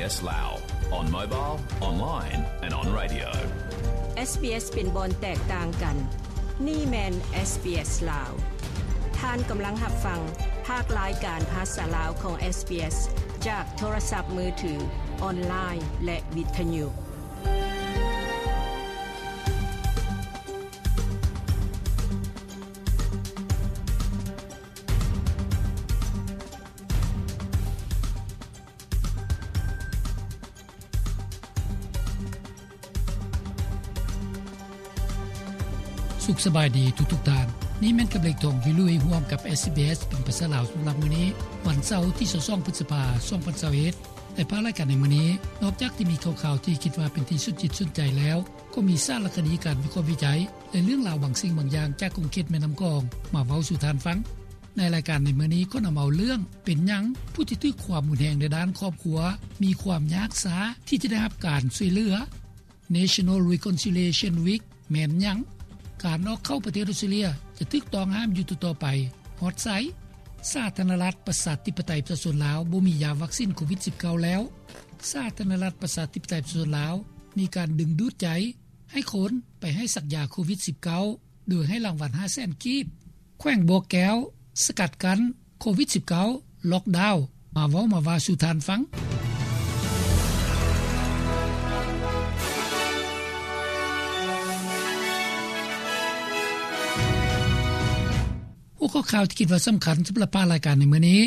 SBS Lao, on mobile, online and on radio. ເອສບີເອສ ເປັນບ່ອນແຕກຕ່າງກັນ. ນີ້ແມ່ນ ເອສບີເອສ ລາວ. ທ່ານກຳລັງຮັບຟັງພາກລາຍການພາສາລາວຂອງ ເອສບີເອສ ຈາກໂທລະສັບມືຖື, ອອນລາຍ ແລະ ວິທະຍຸ. ສຸກສະບາຍດີທຸກໆທ່ານ. ນີ້ແມ່ນກັບເລກທອງວິລຸຍ ຮ່ວມກັບ ເອສບີເອສ ເປັນພາສາລາວ ສຳລັບມື້ນີ້ ວັນເສົາ ທີຊາວສອງ ພຶດສະພາ ສອງພັນຊາວເອັດ. ໃນພາກລາຍການໃນມື້ນີ້, ນອກຈາກທີ່ມີຂ່າວໆທີ່ຄິດວ່າເປັນທີ່ສົນຈິດສົນໃຈແລ້ວ, ກໍມີສາລະຄະດີການວິເຄາະວິໄຈ ແລະ ເລື່ອງລາວບາງສິ່ງບາງຢ່າງຈາກຂົງເຂດແມ່ນ້ຳຂອງ ມາເວົ້າສູ່ທ່ານຟັງ. ໃນລາຍການໃນມື້ນີ້ ກໍນຳເອົາເລື່ອງ ເປັນຫຍັງຜູ້ທີ່ຖືກຄວາມຮຸນແຮງໃນດ້ານຄອບຄົວ ມີຄວາມຍາກຊ້າທີ່ຈະໄດ້ຮັບການຊ່ວຍເຫຼືອ. National Reconciliation Week ແມ່ນຫຍັງ? ການອອກເຂົ້າປະເທດອົດສະຕຣາເລຍ ຈະຖືກຕ້ອງຫ້າມຢູ່ຕໍ່ໆໄປ ຮອດໃສ? ສາທາລະນະລັດ ປະຊາທິປະໄຕ ປະຊາຊົນລາວ ບໍ່ມີຢາວັກຊິນໂຄວິດສິບເກົ້າແລ້ວ. ສາທາລະນະລັດ ປະຊາທິປະໄຕ ປະຊາຊົນລາວ ມີການດຶງດູດໃຈໃຫ້ຄົນໄປໃຫ້ສັກຢາໂຄວິດສິບເກົ້າ ໂດຍໃຫ້ລາງວັນຫ້າແສນກີບ. ແຂວງບໍ່ແກ້ວ ສະກັດກັ້ນໂຄວິດສິບເກົ້າ ລັອກດາວ. ມາເວົ້າມາວ່າສູ່ທ່ານຟັງ. ຫົວຂໍ້ຂ່າວທີ່ຄິດວ່າສຳຄັນສຳລັບພາກລາຍການໃນມື້ນີ້,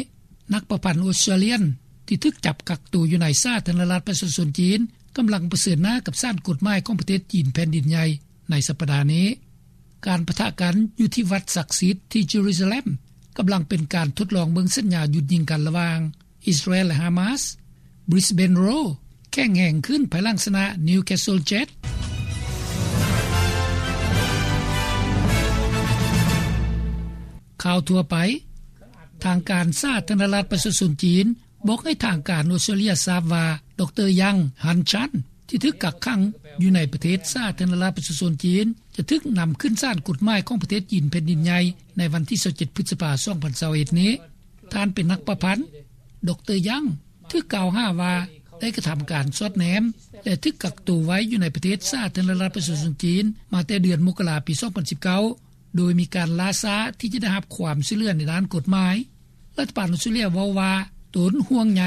ນັກປະພັນອົດສະຕຣາເລຍນທີ່ຖືກຈັບກັກໂຕຢູ່ໃນສາທາລະນະລັດປະຊາຊົນຈີນ ກຳລັງປະເຊີນໜ້າກັບສານກົດໝາຍຂອງປະເທດຈີນແຜ່ນດິນໃຫຍ່ໃນສັບປະດານີ້. ການປະທະກັນຢູ່ທີ່ວັດສັກສິດທີ່ເຢຣູຊາເລັມ ກຳລັງເປັນການທົດລອງເບິ່ງສັນຍາຢຸດຍິງກັນລະຫວ່າງອິດສະຣາແອນ ແລະ ຮາມາສ. Brisbane Roar ແຂງແຮງຂຶ້ນພາຍຫຼັງຊະນະ Newcastle Jets. ຂ່າວທົ່ວໄປ. ທາງການສາທາລະນະລັດປະຊາຊົນຈີນ ບອກໃຫ້ທາງການອົດສະຕຣາເລຍຊາບວ່າ ດຣ ຍັງ ຮັນຊັນ ທີ່ຖືກກັກຂັງຢູ່ໃນປະເທດສາທາລະນະລັດປະຊາຊົນຈີນ ຈະຖືກນຳຂຶ້ນສານກົດໝາຍຂອງປະເທດຈີນແຜ່ນດິນໃຫຍ່ ໃນວັນທີຊາວເຈັດ ພຶດສະພາ ສອງພັນຊາວເອັດນີ້. ທ່ານເປັນນັກປະພັນ. ດຣ ຍັງ ຖືກກ່າວຫາວ່າໄດ້ກະທຳການສອດແນມ ແລະ ຖືກກັກໂຕໄວ້ຢູ່ໃນປະເທດສາທາລະນະລັດປະຊາຊົນຈີນ ມາແຕ່ເດືອນມົກກະລາ ປີສອງພັນສິບເກົ້າ ໂດຍມີການລ່າຊ້າທີ່ຈະໄດ້ຮັບຄວາມຊ່ວຍເຫຼືອໃນດ້ານກົດໝາຍ. ລັດຖະບານອົດສະຕຣາເລຍເວົ້າວ່າ ຕົນຫ່ວງໃຍ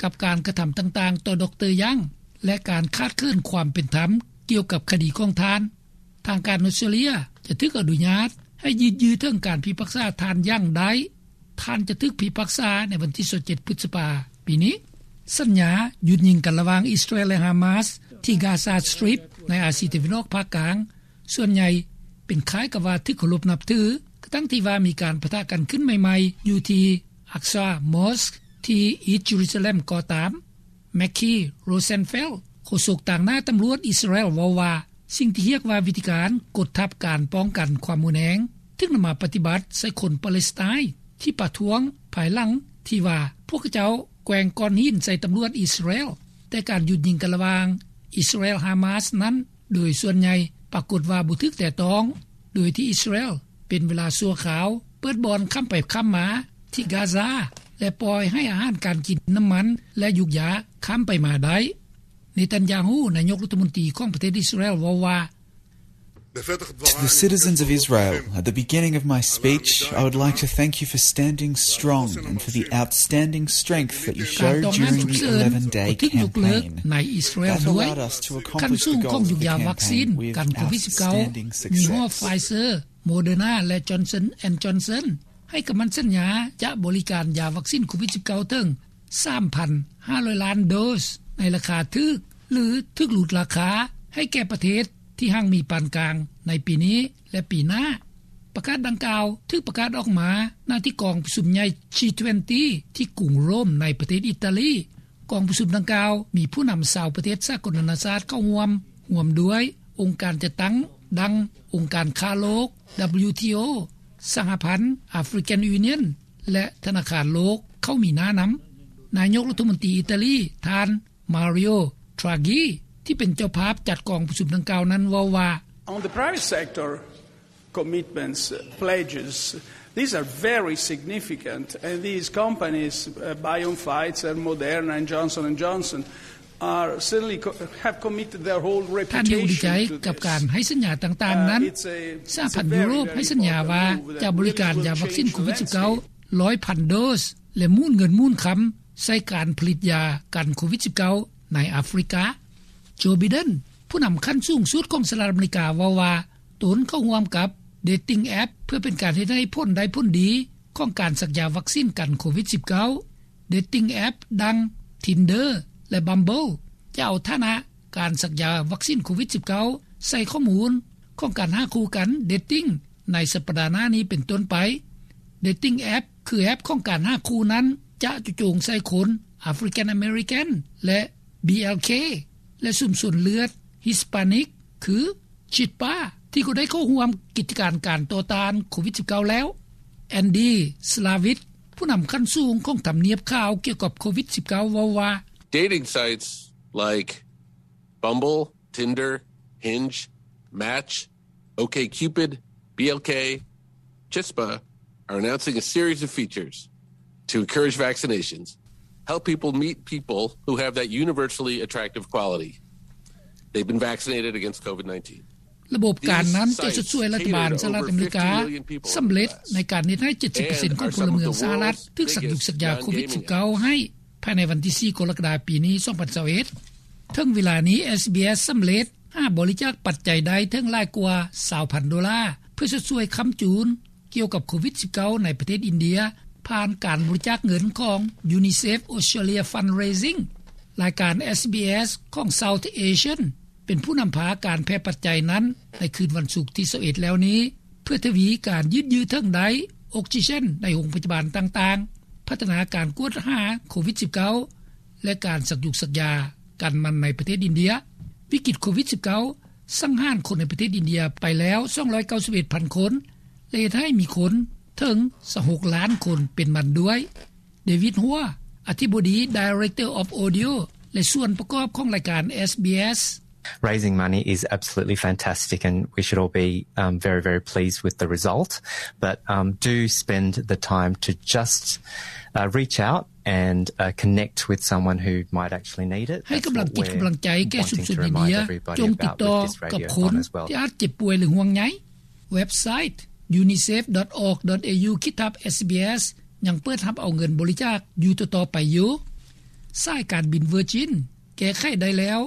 ກັບການກະທຳຕ່າງໆຕໍ່ ດຣ ຍັງ ແລະ ການຂາດເຂີນຄວາມເປັນທຳກ່ຽວກັບຄະດີຂອງທ່ານ. ທາງການອົດສະຕຣາເລຍຈະຖືກອະນຸຍາດໃຫ້ຍືດເຖິງການພິພາກສາທ່ານຍັງໄດ້. ທ່ານຈະຖືກພິພາກສາໃນວັນທີຊາວເຈັດ ພຶດສະພາ ປີນີ້. ສັນຍາຢຸດຍິງກັນລະຫວ່າງອິດສະຣາແອນ ແລະ ຮາມາສ ທີ່ Gaza Strip ໃນອາຊີຕາເວັນອອກພາກກາງ ສ່ວນໃຫຍ່ເປັນຄ້າຍກັບວ່າຖືກເຄົາລົບນັບຖື, ກະທັ່ງທີ່ວ່າມີການປະທະກັນຂຶ້ນໃໝ່ໆຢູ່ທີ່ Aqsa Mosque ທີ່ East Jerusalem ກໍຕາມ. Mackie Rosenfeld ໂຄສົກຕາງໜ້າຕຳຫຼວດອິດສະຣາແອນ ເວົ້າວ່າ ສິ່ງທີ່ຮຽກວ່າວິທີການກົດທັບການປ້ອງກັນຄວາມຮຸນແຮງ ຖືກນຳມາປະຕິບັດໃສ່ຄົນປາເລສໄຕນ໌ທີ່ປະທ້ວງ ພາຍຫຼັງທີ່ວ່າພວກເຂົາເຈົ້າແກວ່ງກ້ອນຫີນໃສ່ຕຳຫຼວດອິດສະຣາແອນ, ແຕ່ການຢຸດຍິງກັນລະຫວ່າງອິດສະຣາແອນ ຮາມາສ ນັ້ນ ໂດຍສ່ວນໃຫຍ່ປາກົດວ່າບໍ່ຖືກແຕະຕ້ອງ, ໂດຍທີ່ອິດສະຣາແອນເປັນເວລາຊົ່ວຄາວເປີດບ່ອນຂ້າມໄປຂ້າມມາທີ່ກາຊາ ແລະ ປ່ອຍໃຫ້ອາຫານການກິນ, ນ້ຳມັນ ແລະ ຢູກຢາຂ້າມໄປມາໄດ້. ເນຕັນຢາຮູ ນາຍົກລັດຖະມົນຕີຂອງປະເທດອິດສະຣາແອນ ເວົ້າວ່າ To the citizens of Israel, at the beginning of my speech, I would like to thank you for standing strong and for the outstanding strength that you showed during the eleven day campaign. That allowed us to accomplish the goals of the campaign with outstanding success. ມີຫໍ້ Pfizer, Moderna ແລະ Johnson and Johnson ໃຫ້ຄຳໝັ້ນສັນຍາຈະບໍລິການຢາວັກຊິນໂຄວິດສິບເກົ້າເຖິງ ສາມພັນຫ້າຮ້ອຍລ້ານໂດສ ໃນລາຄາຖືກ ຫຼື ຖືກຫຼຸດລາຄາໃຫ້ແກ່ປະເທດທີ່ຮັ່ງມີປານກາງໃນປີນີ້ ແລະ ປີໜ້າ. ປະກາດດັ່ງກ່າວຖືກປະກາດອອກມາ ນະທີ່ກອງປະຊຸມໃຫຍ່ G twenty ທີ່ກຸງໂຣມ ໃນປະເທດອີຕາລີ. ກອງປະຊຸມດັ່ງກ່າວມີຜູ້ນຳຊາວປະເທດສາກົນນານາຊາດເຂົ້າຮ່ວມ, ຮ່ວມດ້ວຍອົງການຈັດຕັ້ງດັ່ງອົງການຄ້າໂລກ WTO, ສະຫະພັນ African Union ແລະ ທະນາຄານໂລກເຂົ້າມີໜ້ານຳ. ນາຍົກລັດຖະມົນຕີອີຕາລີ ທ່ານ Mario Draghi ທີ່ເປັນເຈົ້າພາບຈັດກອງປະຊຸມດັ່ງກ່າວນັ້ນເວົ້າວ່າ On the private sector, commitments, pledges These are very significant, and these companies, uh, BioNTech, Pfizer, Moderna, and Johnson and Johnson, are certainly co-, have committed their whole reputation to this. ທ່ານ Young ດີໃຈກັບການໃຫ້ສັນຍາຕ່າງໆນັ້ນ. ສະຫະພັນຢູໂຣບໃຫ້ສັນຍາວ່າຈະບໍລິການຢາວັກຊິນໂຄວິດສິບເກົ້າ ຮ້ອຍພັນໂດສ ແລະ ໝູນເງິນໝູນຄຳໃສ່ການຜະລິດຢາກັນໂຄວິດສິບເກົ້າໃນອາຟຣິກາ. ໂຈ ໄບເດັນ ຜູ້ນຳຂັ້ນສູງສຸດຂອງສະຫະລັດອາເມລິກາ ເວົ້າວ່າຕົນເຂົ້າຮ່ວມກັບ dating app ເພື່ອເປັນການເຮັດໃຫ້ຜົນໄດ້ຜົນດີຂອງການສັກຢາວັກຊິນກັນໂຄວິດສິບເກົ້າ. dating app ດັ່ງ Tinder ແລະ Bumble ຈະເອົາຖານະການສັກຢາວັກຊິນໂຄວິດສິບເກົ້າໃສ່ຂໍ້ມູນຂອງການຫາຄູ່ກັນ dating ໃນສັບປະດາໜ້ານີ້ເປັນຕົ້ນໄປ. dating app ຄືແອັບຂອງການຫາຄູ່ນັ້ນ ຈະເຈາະຈົງໃສ່ຄົນ African American ແລະ BLK ແລະ ຊຸມຊົນເລືອດ Hispanic ຄື Chippa ທີ່ກໍໄດ້ເຂົ້າຮ່ວມກິດຈະການການຕໍ່ຕ້ານໂຄວິດສິບເກົ້າແລ້ວ. Andy Slavitt ຜູ້ນຳຂັ້ນສູງຂອງທຳນຽບຂ່າວກ່ຽວກັບໂຄວິດສິບເກົ້າ ເວົ້າວ່າ Dating sites like Bumble, Tinder, Hinge, Match, OkCupid, BLK, Chispa are announcing a series of features to encourage vaccinations, help people meet people who have that universally attractive quality they've been vaccinated against COVID nineteen. ລະບົບການນັ້ນຈະຊົດຊ່ວຍລັດຖະບານສະຫະລັດອາເມລິກາສຳເລັດໃນການເຮັດໃຫ້ເຈັດສິບເປີເຊັນຂອງພົນລະເມືອງສະຫະລັດຖືກສັກຢຸກສັກຢາໂຄວິດສິບເກົ້າໃຫ້ ພາຍໃນວັນທີສີ່ ກໍລະກະດາ ປີນີ້ ສອງພັນຊາວເອັດ. ເຖິງເວລານີ້ ເອສບີເອສ ສຳເລັດຫາບໍລິຈາກປັດໄຈໄດ້ເຖິງຫຼາຍກວ່າຊາວພັນໂດລາ ເພື່ອຊົດຊ່ວຍຄ້ຳຈູນກ່ຽວກັບໂຄວິດສິບເກົ້າໃນປະເທດອິນເດຍ ຜ່ານການບໍລິຈາກເງິນຂອງ UNICEF Australia Fundraising. ລາຍການ ເອສບີເອສ ຂອງ South Asian ເປັນຜູ້ນຳພາການແຜ່ປັດໄຈນັ້ນໃນຄືນວັນສຸກທີຊາວເອັດແລ້ວນີ້ ເພື່ອທະວີການຍືດເຍື້ອເຖິງໄດ້ອົກຊີເຈນໃນໂຮງພະຍາບານຕ່າງໆ, ພັດທະນາການກວດຫາໂຄວິດສິບເກົ້າ ແລະ ການສັກຢຸກສັກຢາກັນມັນໃນປະເທດອິນເດຍ. ວິກິດໂຄວິດສິບເກົ້າ ສັງຫານຄົນໃນປະເທດອິນເດຍໄປແລ້ວສອງຮ້ອຍເກົ້າສິບເອັດພັນຄົນ ແລະ ເຮັດໃຫ້ມີຄົນເຖິງຊາວຫົກລ້ານຄົນເປັນມັນດ້ວຍ. ເດວິດ ຫົວ ອະທິບໍດີ Director of Audio ແລະ ສ່ວນປະກອບຂອງລາຍການ ເອສບີເອສ Raising money is absolutely fantastic and we should all be, um, very, very pleased with the result. But, um, do spend the time to just, uh, reach out and, uh, connect with someone who might actually need it. ໃຫ້ກຳລັງຈິດກຳລັງໃຈແກ່ຊຸມຊົນອິນເດຍ ຈົ່ງຕິດຕໍ່ກັບຄົນທີ່ອາດເຈັບປ່ວຍ ຫຼື ຫ່ວງໃຍ. ເວັບໄຊ unicef.org.au/sbs ຍັງເປີດຮັບເອົາເງິນບໍລິຈາກຢູ່ຕໍ່ໆໄປຢູ່. ສາຍການບິນ Virgin ແກ້ໄຂໄດ້ແລ້ວ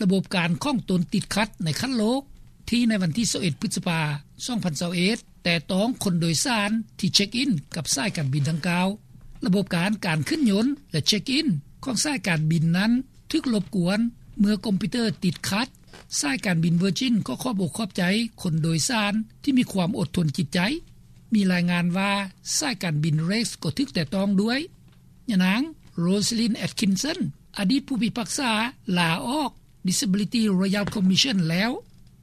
ລະບົບການຂອງຕົນຕິດຂັດໃນຂັ້ນໂລກ ທີ່ໃນວັນທີຊາວເອັດ ພຶດສະພາ ສອງພັນຊາວເອັດ ແຕ່ຕ້ອງຄົນໂດຍສານທີ່ເຊັກອິນກັບສາຍການບິນດັ່ງກ່າວ. ລະບົບການ ການຂຶ້ນຍົນ ແລະ ເຊັກອິນຂອງສາຍການບິນນັ້ນຖືກລົບກວນເມື່ອຄອມພິວເຕີຕິດຂັດ. ສາຍການບິນ Virgin ກໍຂອບອົກຂອບໃຈຄົນໂດຍສານທີ່ມີຄວາມອົດທົນຈິດໃຈ. ມີລາຍງານວ່າສາຍການບິນ Rex ກໍຖືກແຕະຕ້ອງດ້ວຍ. ຍານາງ Rosalind Atkinson ອະດີດຜູ້ພິພາກສາລາອອກ Disability Royal Commission ແລ້ວ.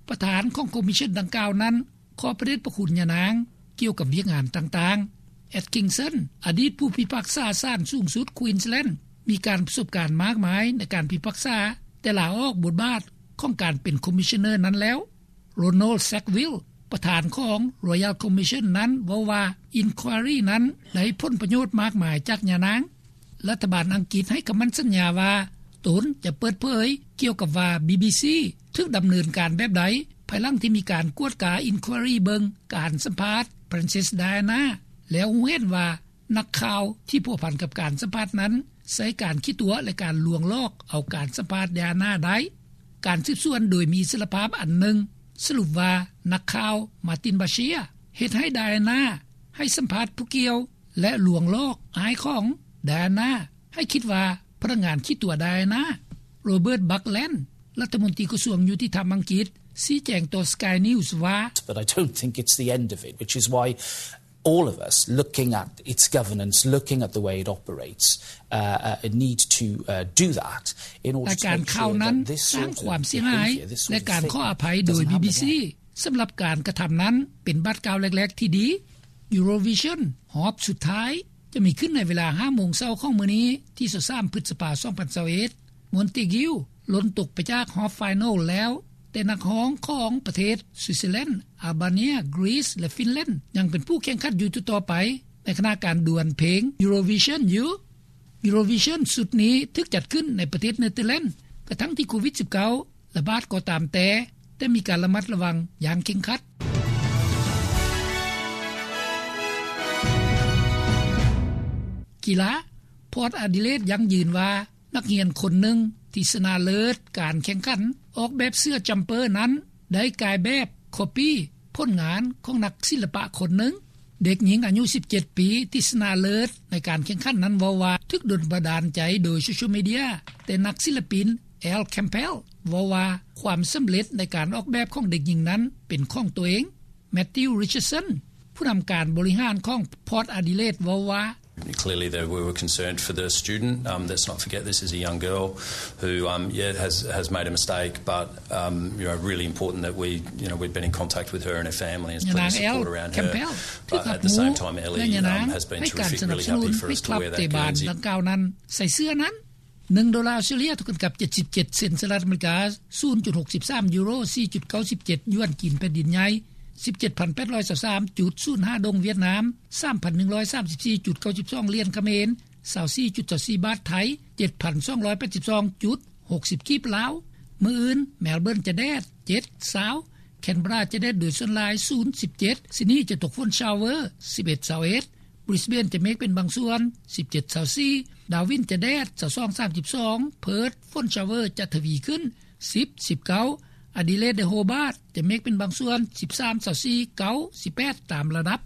ປະທານຂອງຄອມມິຊຊັນດັ່ງກ່າວນັ້ນ ຂອບພະເດດພະຄຸນຍານາງກ່ຽວກັບວຽກງານຕ່າງໆ. Atkinson ອະດີດຜູ້ພິພາກສາສານສູງສຸດ Queensland ມີການປະສົບການມາກມາຍໃນການພິພາກສາ, ແຕ່ລາອອກບົດບາດຂອງການເປັນຄອມມິຊຊັນເນີນັ້ນແລ້ວ. Ronald Sackville ປະທານຂອງ Royal Commission ນັ້ນເວົ້າວ່າ Inquiry ນັ້ນໄດ້ຜົນປະໂຫຍດມາກມາຍຈາກຍານາງ. ລັດຖະບານອັງກິດໃຫ້ຄຳໝັ້ນສັນຍາວ່າຕົນຈະເປີດເຜີຍກ່ຽວກັບວ່າ ບີບີຊີ ຖືກດຳເນີນການແບບໃດ ພາຍຫຼັງທີ່ມີການກວດກາ Inquiry ເບິ່ງການສຳພາດ Princess Diana ແລ້ວຮູ້ເຫັນວ່າ ນັກຂ່າວທີ່ພົວພັນກັບການສຳພາດນັ້ນ ໃຊ້ການຂີ້ຕົວະ ແລະ ການລວງຫຼອກເອົາການສຳພາດ Diana ໄດ້. ການສືບສວນໂດຍມີອິດສະຫຼະພາບອັນໜຶ່ງສະຫຼຸບວ່າ ນັກຂ່າວ Martin Bashir ເຮັດໃຫ້ Diana ໃຫ້ສຳພາດຜູ້ກ່ຽວ ແລະ ລວງຫຼອກອ້າຍຂອງ Diana ໃຫ້ຄິດວ່າພະນັກງານຂີ້ຕົວະ Diana. Robert Buckland ລັດຖະມົນຕີກະຊວງຍຸຕິທຳອັງກິດ ຊີ້ແຈງຕໍ່ Sky News ວ່າ But I don't think it's the end of it, which is why all of us looking at its governance, looking at the way it operates, uh, uh, need to, uh, do that in order to make sure that this sort of behavior, this sort of thing doesn't continue. ລາຍການຂ່າວນັ້ນສ້າງຄວາມເສຍຫາຍ ແລະ ການຂໍອະໄພໂດຍ ບີບີຊີ ສຳລັບການກະທຳນັ້ນເປັນບາດກ້າວແລກໆທີ່ດີ. Eurovision ຮອບສຸດທ້າຍຈະມີຂຶ້ນໃນເວລາຫ້າໂມງເຊົ້າຂອງມື້ນີ້ ທີຊາວສາມ ພຶດສະພາ ສອງພັນຊາວເອັດ. Montague ຫຼົ່ນຕົກໄປຈາກຮອບ Final ແລ້ວ ແຕ່ນັກຮ້ອງຂອງປະເທດ Switzerland, Albania, Greece ແລະ Finland ຍັງເປັນຜູ້ແຂ່ງຂັນຢູ່ຕໍ່ໆໄປ ໃນຂະນະການດວນເພງ Eurovision ຢູ່. Eurovision ຊຸດນີ້ຖືກຈັດຂຶ້ນໃນປະເທດ Netherlands ກະທັງທີ່ໂຄວິດ-19 ລະບາດກໍຕາມແຕ່ ແຕ່ມີການລະມັດລະວັງຢ່າງເຄັ່ງຄັດ. ກິລາ Port Adelaide ຢັ້ງຢືນວ່າ ນັກຮຽນຄົນໜຶ່ງທີ່ຊະນະເລີດການແຂ່ງຂັນອອກແບບເສື້ອ Jumper ນັ້ນ ໄດ້ກາຍແບບ copy ຜົນງານຂອງນັກສິລປະຄົນໜຶ່ງ. ເດັກຍິງອາຍຸ ສິບເຈັດ ປີ ທີ່ຊະນະເລີດໃນການແຂ່ງຂັນນັ້ນເວົ້າວ່າ ຖືກດົນບັນດານໃຈໂດຍໂຊຊຽວມີເດຍ ແຕ່ນັກສິລະປິນ Al Campbell ເວົ້າວ່າ ຄວາມສຳເລັດໃນການອອກແບບຂອງເດັກຍິງນັ້ນເປັນຂອງໂຕເອງ. Matthew Richardson ຜູ້ນຳການບໍລິຫານຂອງ Port Adelaide ເວົ້າວ່າ Clearly, there, we were concerned for the student. Um, let's not forget this is a young girl who, um, yeah, has, has made a mistake, but, um, you know, really important that we, you know, we've been in contact with her and her family and there's plenty of support around her. But at the same time, Ellie, um, has been terrific, really happy for us to wear that Guernsey. ຍານາງ Al Campbell ຖືກຮັບຮູ້ ແລະຍານາງໃຫ້ການສະໜັບສະໜູນ ໃຫ້ຄວາມເຕັມບານດັ່ງກ່າວນັ້ນໃສ່ເສື້ອນັ້ນ. ໜຶ່ງໂດລາອົດສະຕຣາລີ ເທົ່າກັນກັບ ເຈັດສິບເຈັດ ເຊັນສະຫະລັດອາເມລິກາ, ສູນຈຸດຫົກສິບສາມຢູໂຣ, ສີ່ຈຸດເກົ້າສິບເຈັດຢວນຈີນແຜ່ນດິນໃຫຍ່, ສິບເຈັດພັນແປດຮ້ອຍຊາວສາມຈຸດສູນຫ້າດົງຫວຽດນາມ, ສາມພັນໜຶ່ງຮ້ອຍສາມສິບສີ່ຈຸດເກົ້າສິບສອງຫຼຽນຂະເໝນ, ຊາວສີ່ຈຸດຊາວສີ່ບາດໄທ, ເຈັດພັນສອງຮ້ອຍແປດສິບສອງຈຸດຫົກສິບກີບລາວ. ມື້ອື່ນ ແມລເບີນຈະແດດ ເຈັດ ຊາວ, ແຄນເບີຣາຈະແດດໂດຍສ່ວນຫຼາຍ ສູນ ສິບເຈັດ, ຊິດນີຈະຕົກຝົນຊາວເວີ ສິບເອັດ ຊາວເອັດ, ບຣິສເບນຈະເມກເປັນບາງສ່ວນ ສິບເຈັດ ຊາວສີ່, ດາວິນຈະແດດ ຊາວສອງ ສາມສິບສອງ, ເພີດ ຝົນຊາວເວີຈະທະວີຂຶ້ນ ສິບ ສິບເກົ້າ, ອາດີເລດ ແລະ ໂຮບາດຈະເມກເປັນບາງສ່ວນ ສິບສາມ ຊາວສີ່, ເກົ້າ ສິບແປດ ຕາມລະດັບ.